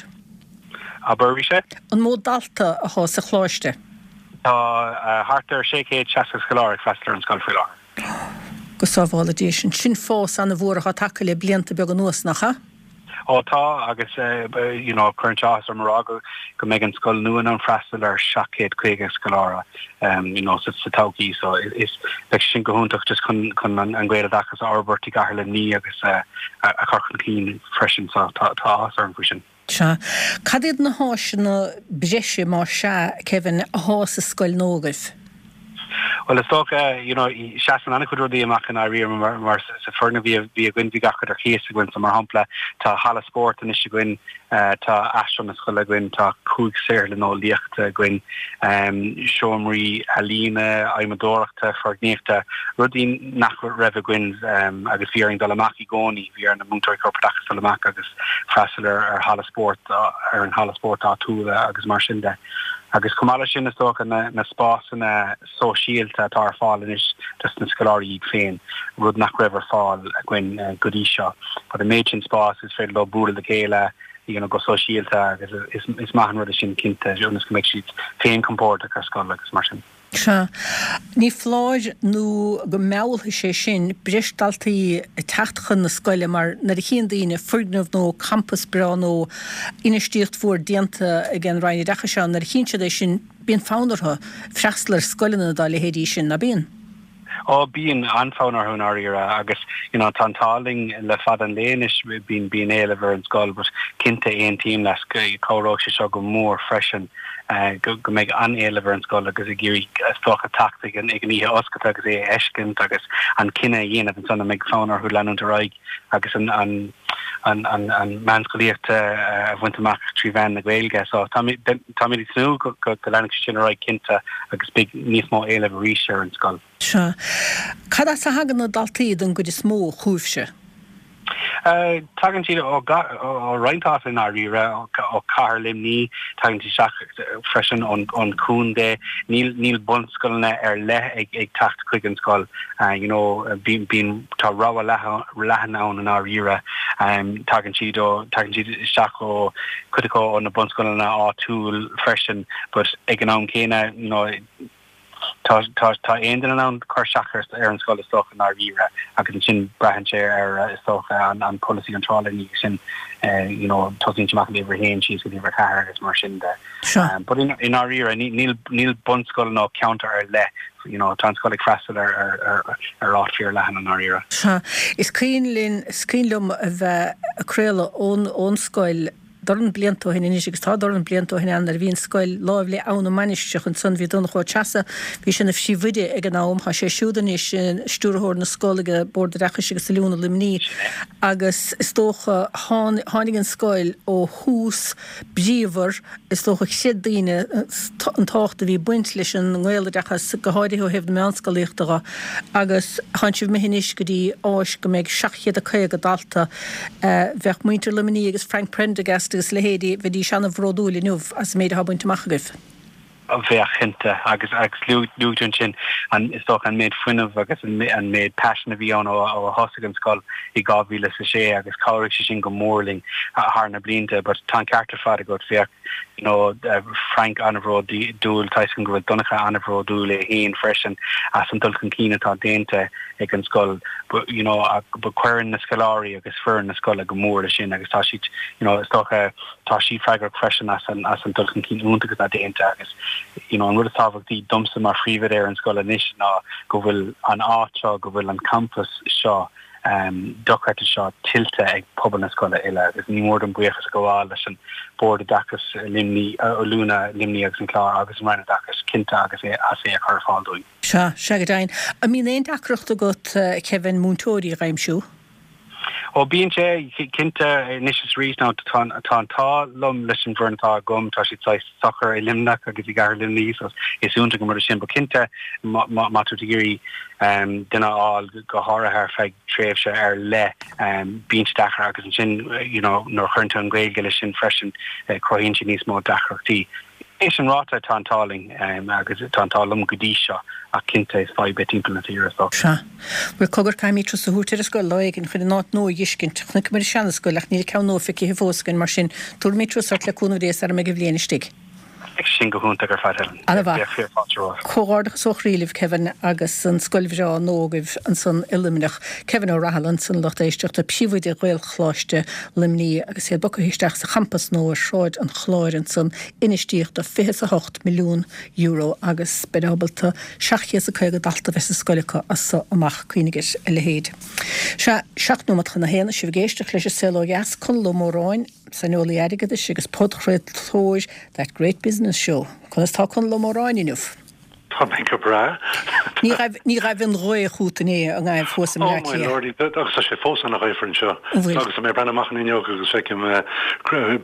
Abair arís é? An mó dalta atá sa choláiste? Tá thart ar 660 scoláire ag freastal ar an scoil faoi láthair. Go sábhála Dia sinn. Sin fás ana-mhór atá tagtha le blianta beaga anuas, nach ea? Ó tá, agus you know cuireann sé áthas orm a rá go go mbeidh an scoil nua in ann freastal ar 750 scoláire you know sa sa todhchaí so is beidh sé sin go hiontach just chun chun an an Gaeloideachas a fhorbairt i gcathair Luimnigh agus a a chur chun cinn freisin so tá tá áthas orm faoi sin. Sea. Cad iad na háiseanna breise, más ea, Kevin, athá sa scoil nua agaibh? Bhuel, is dócha, you know, seasann an-chuid rudaí amach i ndáiríre mar, mar sa foirgneamh a bhí againn, bhí gach rud ar cíos againn. So, mar shampla, tá halla spóirt anois againn, tá áislann na scoile againn, tá 5 saotharlann eolaíochta againn, seomraí ealaíne, adhmadóireachta, foirgníochta, rudaí nach raibh againn agus bhí orainn dul amach i gcónaí, bhí ar na múinteoirí corpoideachais dul amach agus freastal ar, ar halla spóirt, ar an halla spóirt áitiúil agus mar sin de. Agus chomh maith leis sin, is dócha, na spásanna sóisialta atá ar fáil anois dos na scoláirí iad féin, rud nach raibh ar fáil againn go dtí seo. But an méid sin spás, is féidir leo bualadh le chéile, you know, go sóisialta agus is maith an rud é sin cinnte, ionas go mbeidh siad féin compordach ar scoil agus mar sin. Sea. Ní foláir nó go meallfaidh sé sin breis daltaí ag teacht chun na scoile mar nuair a chíonn daoine foirgneamh nó campas breá nó infheistíocht mhór déanta ag an Roinn Oideachais ann, nuair a chíonn siad é sin bíonn fonn orthu freastal ar scoileanna dá leithéidí sin, ná bíonn? Ó, bíonn an-fhonn orthu i ndáiríre agus you know tá an t-ádh linn le fada an lae anois, bíonn bíonn éileamh ar an scoil but cinnte aontaím leat, cabhróidh sé seo go mór freisin. go mbeidh an-éileamh ar an scoil agus ag iarraidh is dócha teacht ag an oíche oscailte agus é a fheiscint agus an cinneadh a dhéanamh ansan an mbeidh fonn orthu leanúint ar aghaidh agus an an meánscolaíocht a bhaint amach trí mheán na Gaeilge. So táimid ag tnúth go leanfaidh sé sin ar aghaidh cinnte agus beidh níos mó éilimh arís ar an scoil. Sea. Cad as a thagann na daltaí don gcuid is mó chugaibhse? Tagann siad ó roinnt áit i ndáiríre, ó chathair Luimnigh, tagann siad isteach freisin ón chontae. Níl níl bunscoileanna ar leith ag ag teacht chuig an scoil. You know, bíonn bíonn tá rogha leathan ann i ndáiríre. Tagann siad ó tagann siad isteach ó cuid acu ó na bunscoileanna áitiúil freisin, but ag an am céanna, you know, Tá aon duine in ann cur isteach ar an scoil is dócha i ndáiríre agus ansin braitheann sé ar is dócha an polasaí iontrála ina dhiaidh sin you know tosaíonn sé amach ag uimhir a haon síos go dtí uimhir a ceathair agus mar sin de. But i ndáiríre níl níl bunscoil nó ceantar ar leith you know tá an scoil ag freastal ar ar ar áit fíor leathan i ndáiríre. Sea. Is cuimhin linn, is cuimhin liom a bheith ag craoladh ón ón scoil dorn blianta ó shin anois, agus tá dorn blianta ó shin ann, nuair a bhí an scoil láimh le Abha na Mainistreach ansan, bhí Donncha Ó Treasa, bhí sé ina phríomhoide ag an am, tá sé siúd anois ina stiúrthóir na scol ag Bord Oideachais agus Oiliúna Luimnigh, agus is dócha, tháinig an scoil ó thús bríomhar, is dócha chreid daoine an tábhacht a bhí ag baint leis an nGaeloideachas, go háirithe ó thaobh na meánscolaíochta dho, agus tánn sibh imithe anois go dtí áis go mbeidh 750 dalta. Bheadh muintir Luimnigh agus Frank Prendergast agus a leithéidí, bheidís an-bhródúil inniu as an méid atá bainte amach agaibh. Bheadh, cinnte. Agus agus luaigh tú ansin an, is dócha, an méid fuinnimh agus an an méid paisin a bhí ann ó ó a thosaigh an scoil i 2006 agus chabhraigh sé sin go mór linn thar na blianta. But tá an ceart ar fad agat, bheadh you know Frank an-bhródúil, tá a fhios agam go bhfuil Donncha an-bhródúil é féin freisin as an dul chun cinn atá déanta ag an scoil but you know but cuireann na scoláirí agus foireann na scoile go mór leis sin agus tá siad you know is dócha tá siad freagrach freisin as an as an dul chun cinn iontach atá déanta agus you know an rud is tábhachtaí domsa mar phríomhoide ar an scoil anois ná go bhfuil an áit seo go bhfuil an campas seo um dochreidte seo tuillte ag pobal na scoile uile agus ní mór dom buíochas a ghabháil leis an Bord Oideachais Luimnigh, Oiliúna Luimnigh agus an Clár agus an Roinn Oideachais cinnte agus é as é a chur ar fáil dúinn. Sea, sea go deimhin. An mbíonn aon deacracht agat, Kevin, múinteoirí a dh'aimsiú? Ó, bíonn sé, cinnte, anois is arís. Now, tá an t-ádh liom leis an bhfoireann atá agam, tá siad saghas socair i Luimneach agus i gcathair Luimnigh so is iontach an rud é sin. But cinnte, má tá tú ag iarraidh duine a fháil, go háirithe ar feadh tréimhse ar leith, bíonn sé deacair agus ansin, you know, nuair a chuireann tú an Ghaeilge leis sin freisin, cruthaíonn sé níos mó deacrachtaí. É sin ráite, tá an t-ádh linn agus tá an t-ádh liom go dtí seo ach cinnte is fadhb é timpeall na tíre is dócha. Sea. Bhuel, cogar, caithfimid turas a thabhairt ar an scoil lá éigin chun an áit nua a dh'fheiscint. Chonaiceamar an seana-scoil ach níl an ceann nua feicthe fós againn, mar sin, tabharfaimid turas ort le cúnamh Dé sara mbeidh an bhliain istigh. Beidh sin go hiontach ar fad, Helen. Ana-mhaith. Bheadh fíor fáilte romhat. Comhghairdeachas ó chroí libh, Kevin, agus an scoil bhreá nua agaibh ansan i Luimneach. Kevin Ó Rathaille ansan, a lucht éisteachta, Príomhoide Ghaelcholáiste Luimnigh agus iad bogtha isteach sa champas nua ar Shráid an Chláir ansan, infheistíocht de €28 milliún agus beid ábalta 750 dalta a bheith sa scoil acu as so amach, cuimhnigh ar a leithéid. Sea, 7 nóiméad chun a haon, sibh ag éisteacht leis an Saol Ó Dheas, Conall Ó Móráin, saineolaí airgeadais agus podchraoltóir That Great Business Show. Conas tá Conall Ó Móráin inniu? Tá mé go breá. Ní raibh, ní raibh an ghaoth chút inné i nGaillimh thuas i mBleá Cliath. Oh my lordy, agus tá sé fós ana-ghaofar anseo. An bhfuil? Agus tá mé ag breathnú amach an fhuinneog agus feicim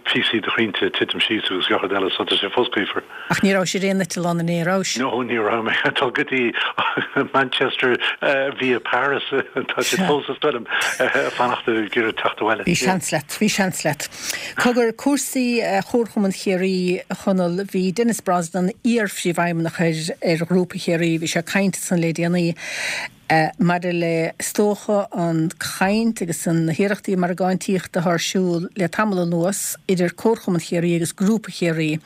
píosaí de chrainnte ag titim síos agus gach rud eile, so tá sé fós gaofar. Ach ní rabhais ar aon eitleán inné, rabhais? No, ní raibh mé. Ag dul go dtí Manchester via Paris. Tá siad fós is dóigh liom ag fanacht ag iarraidh teacht abhaile. Bhí seans leat, bhí seans leat. Cogar, cúrsaí Chomharchumann Chiarraí, a Chonaill, bhí Denis Brosnan, iar-phríomhfheidhmeannach ar Ghrúpa Chiarraí, bhí sé ag caint ansan le déanaí maidir le, is dócha, an chaint agus na hiarrachtaí margáintíochta atá ar siúl le tamall anuas idir Comharchumann Chiarraí agus Grúpa Chiarraí.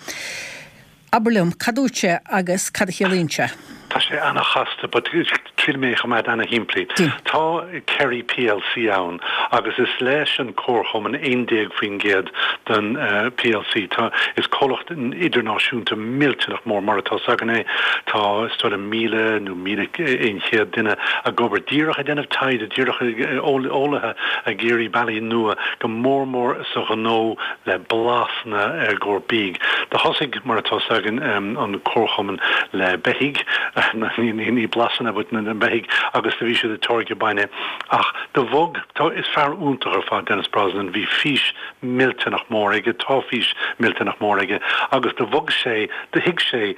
Abair liom, cad dúirt sé agus cad a chiallaíonn sé? Tá sé ana-chasta but triailfidh mé é a choimeád ana-shimplí. Tá Kerry plc ann agus is leis an Comharchumann 11% den plc. Tá, is comhlacht idirnáisiúnta millteanach mór mar atá s'againn é. Tá is dóigh liom 1,000 nó 1,100 duine ag obair díreach ag déanamh taighde, díreach eolaithe ag iarraidh bealaí nua go mór mór sa ghnó le blasanna i gcomhair bídh. Do thosaigh, mar atá 's againn, an comharchumann le beithígh, ní blasanna but na beithígh, agus do bhí siad ag táirgeadh bainne. Ach do bhog, tá, is fear iontach ar fad Denis Brosnan, bhí fís millteanach mór aige, tá fís millteanach mór aige, agus do bhog sé, do thuig sé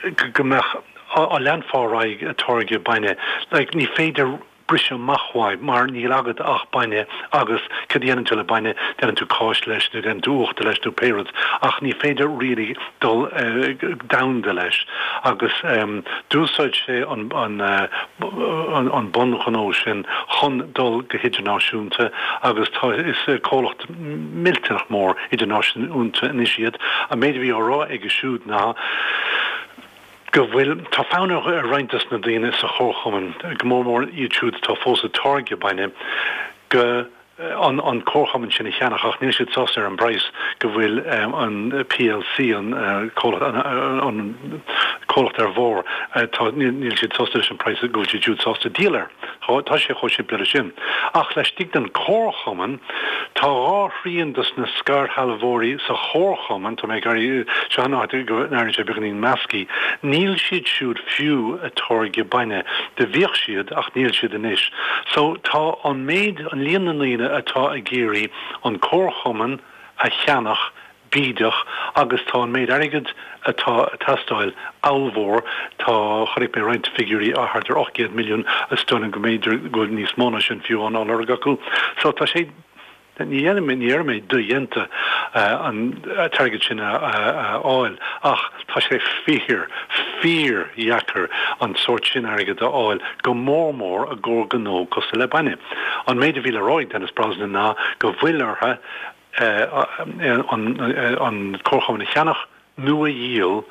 go mbeadh, á leanfá ar aghaidh ag táirgeadh bainne, like ní féidir, briseadh amach uaidh mar níl agat ach bainne agus cad a dhéanann tú le bainne, déanann tú cáis leis nó déanann tú uachtar leis nó pé rud ach ní féidir really dul domhanda leis agus d'úsáid sé an an bunghnó sin chun dul go hidirnáisiúnta agus tá is comhlacht millteanach mór idirnáisiúnta anois iad. An méid a bhí á rá aige siúd ná. go bhfuil, tá fonn ar roinnt dos na daoine sa chomharchumann, go mór mór iad siúd atá fós ag táirgeadh bainne, go an an comharchumann sin a cheannach ach níl siad sásta ar an bpraghas go bhfuil an plc, an comhlacht, an comhlacht ar bharr, tá, níl siad sásta leis an praghas go bhfuil siad siúd sásta díol air. Tá sé chomh simplí leis sin. Ach laistigh den chomharchumann, tá dhá thrian dos na scairshealbhóirí sa chomharchumann, tá mé ag iarraidh, seo an áit go n-airíonn sé beagáinín measctha, níl siad siúd fiú ag táirgeadh bainne. Do bhíodh siad ach níl siad anois. So tá an méid, an líon na ndaoine atá ag iarraidh an comharchumann a cheannach bídeach agus tá an méid airgid atá ag teastáil ollmhór. Tá, chonaic mé roinnt figiúirí, thart ar 800 milliún, is dóigh liom go mb'fhéidir go bhfuil níos mó ná sin fiú á lorg acu. So tá sé, ní dhéanfaidh mé, ní déarfaidh mé dodhéanta an t-airgead sin a fháil ach tá sé fíor, fíor-dheacair an sórt sin airgid a fháil, go mór mór i gcomhair gnó cosúil le bainne. An méid a bhí le rá ag Denis Brosnan ná go bhfuil orthu, an comharchumann a cheannach nó a dhíol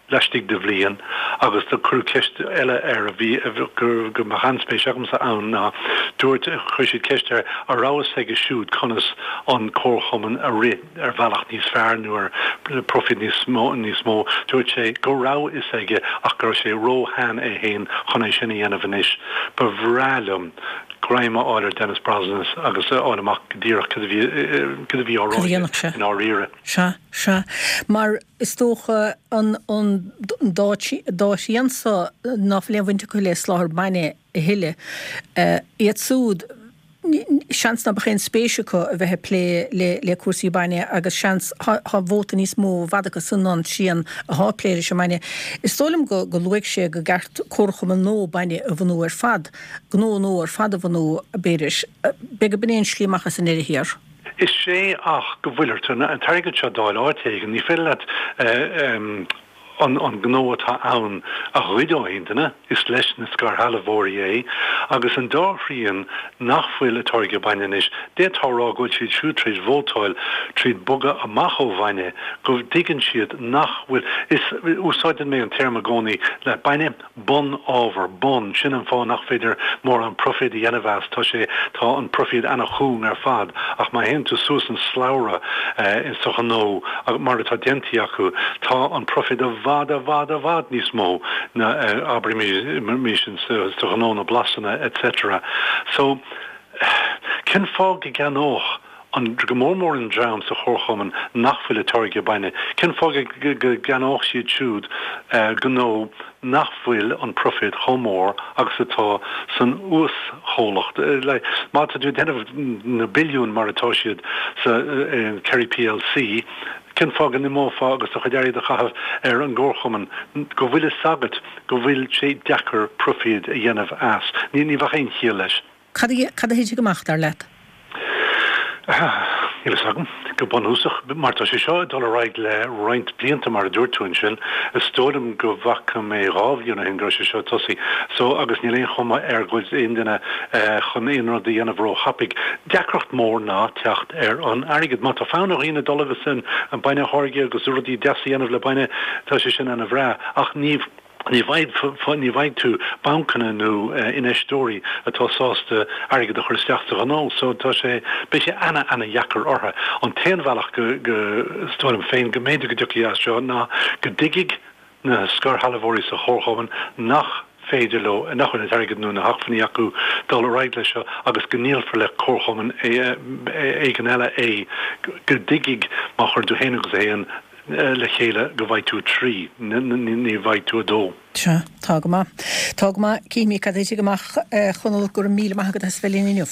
laistigh de bhliain agus do cuireadh ceist eile air a bhí go mbeadh an-spéis agamsa ann ná dúirt chuir siad ceist air an raibh fhios aige siúd conas an comharchumann a rith ar bhealach níos fearr nó ar profit níos mó níos mó dúirt sé go raibh fhios aige ach go raibh sé ró-shean é féin chun é sin a dhéanamh anois ba bhreá liom greim a fháil ar Denis Brosnan agus a fháil amach go díreach cad a bhí, cad a bhí á rá aige i ndáiríre. Sea, sea. Mar is dócha an, an dá, dá thrian so ná fuil aon bhaint acu le soláthar bainne a thuilleadh, iad súd, seans ná beadh aon spéis acu a bheith ag plé le, le cúrsaí bainne agus seans, thá, thá vóta níos mó i bhfad acu san ná an trian athá ag plé leis an mbainne. Is dóigh liom go, go luaigh sé go gceart comharchumann nua bainne a bhunú ar fad. gnó nua ar fad a bhunú, b'fhéidir. B'fhéidir gurb in é an slí amach as i ndeireadh thiar. Is é ach go bhfuil ort an t-airgead seo d'fháil áit éigin. Ní féidir leat an gnó atá ann a ghoid ó aon duine, is leis na scairshealbhóirí é. Agus an dá thrian nach bhfuil ag táirgeadh bainne anois, d'fhéadfá a rá go bhfuil siad siúd tar éis vótáil tríd bogadh amach ó bhainne, go dtuigeann siad nach bhfuil, is, úsáideann mé an téarma i gcónaí le bainne, bun-ábhar, bun, sin an fáth nach féidir mórán proifid a dhéanamh as, tá sé, tá an proifid ana-chúng ar fad, ach má théann tú suas an slabhra sa ghnó, mar atá déanta acu, tá an proifid i bhfad, i bhfad, i bhfad níos mó ná, abraimis, sa ghnó na blasanna etc. So, cén fáth go gceannódh. An, go mór mór an dream sa chomharchumann nach bhfuil ag táirgeadh bainne, cén fáth go gceannódh siad siúd gnó nach bhfuil an proifid chomh mór agus atá san uaschomhlacht? Má tá tú ag déanamh na billiúin mar atá siad sa Kerry plc, cén fáth go n-imeofá agus do chuid airgid a chaitheamh ar an gcomharchumann go bhfuil fhios agat go bhfuil sé deacair proifid a dhéanamh as? Ní bheadh aon chiall leis. Cad a thitfidh amach, dar leat? Níl fhios agam. Go bunúsach, mar tá sé seo ag dul ar aghaidh le roinnt blianta, mar a dúirt tú ansin, is dóigh liom go bhfaca mé 2 bhliain ó shin go raibh sé seo ag tosaí. So, agus níl aon chuma air go bhfuil aon duine chun aon rud a dhéanamh ró-thapaidh. Deacracht mór ná teacht ar an airgead. Má tá fonn ar dhaoine dul agus an bainne a tháirgeadh agus rudaí deasa a dhéanamh le bainne, tá sé sin ana-bhreá. Ach ní. Ní bhfaighidh tú bancanna nó infheisteoirí atá sásta airgead a chur isteach sa ghnó so tá sé, beidh sé ana, ana dheacair orthu. An t-aon bhealach go, go, is dóigh liom féin, go mb'fhéidir go dtiocfaidh as seo ná go dtuigfidh na scairshealbhóirí sa chomharchumann nach féidir leo, nach bhfuil an t-airgead nó na hacmhainní acu dul ar aghaidh leis seo agus go ndíolfar le comharchumann éigin eile é, go dtuigfidh má chuireann tú haon agus a haon le chéile go bhfaighidh tú 3, ní bhfaighidh tú 2. Sea, tá go maith. Tá go maith. Cífimid cad a thitfidh amach, a Chonaill. Go raibh míle maith agat as a bheith linn inniu.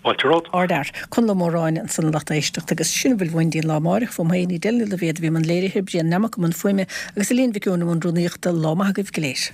Fáilte romhat. Ardfhear. Conall Ó Móráin ansan a lucht éisteachta agus sin a bhfuil uainn go dtí an lá amáireach. Fúm féin, Edel Ní Loibhéad a bhí i mbun léirithe, Brian Nammock i mbun fuaime agus Elaine Mhic Eoin i mbun rúnaíochta. Lá maith agaibh go léir.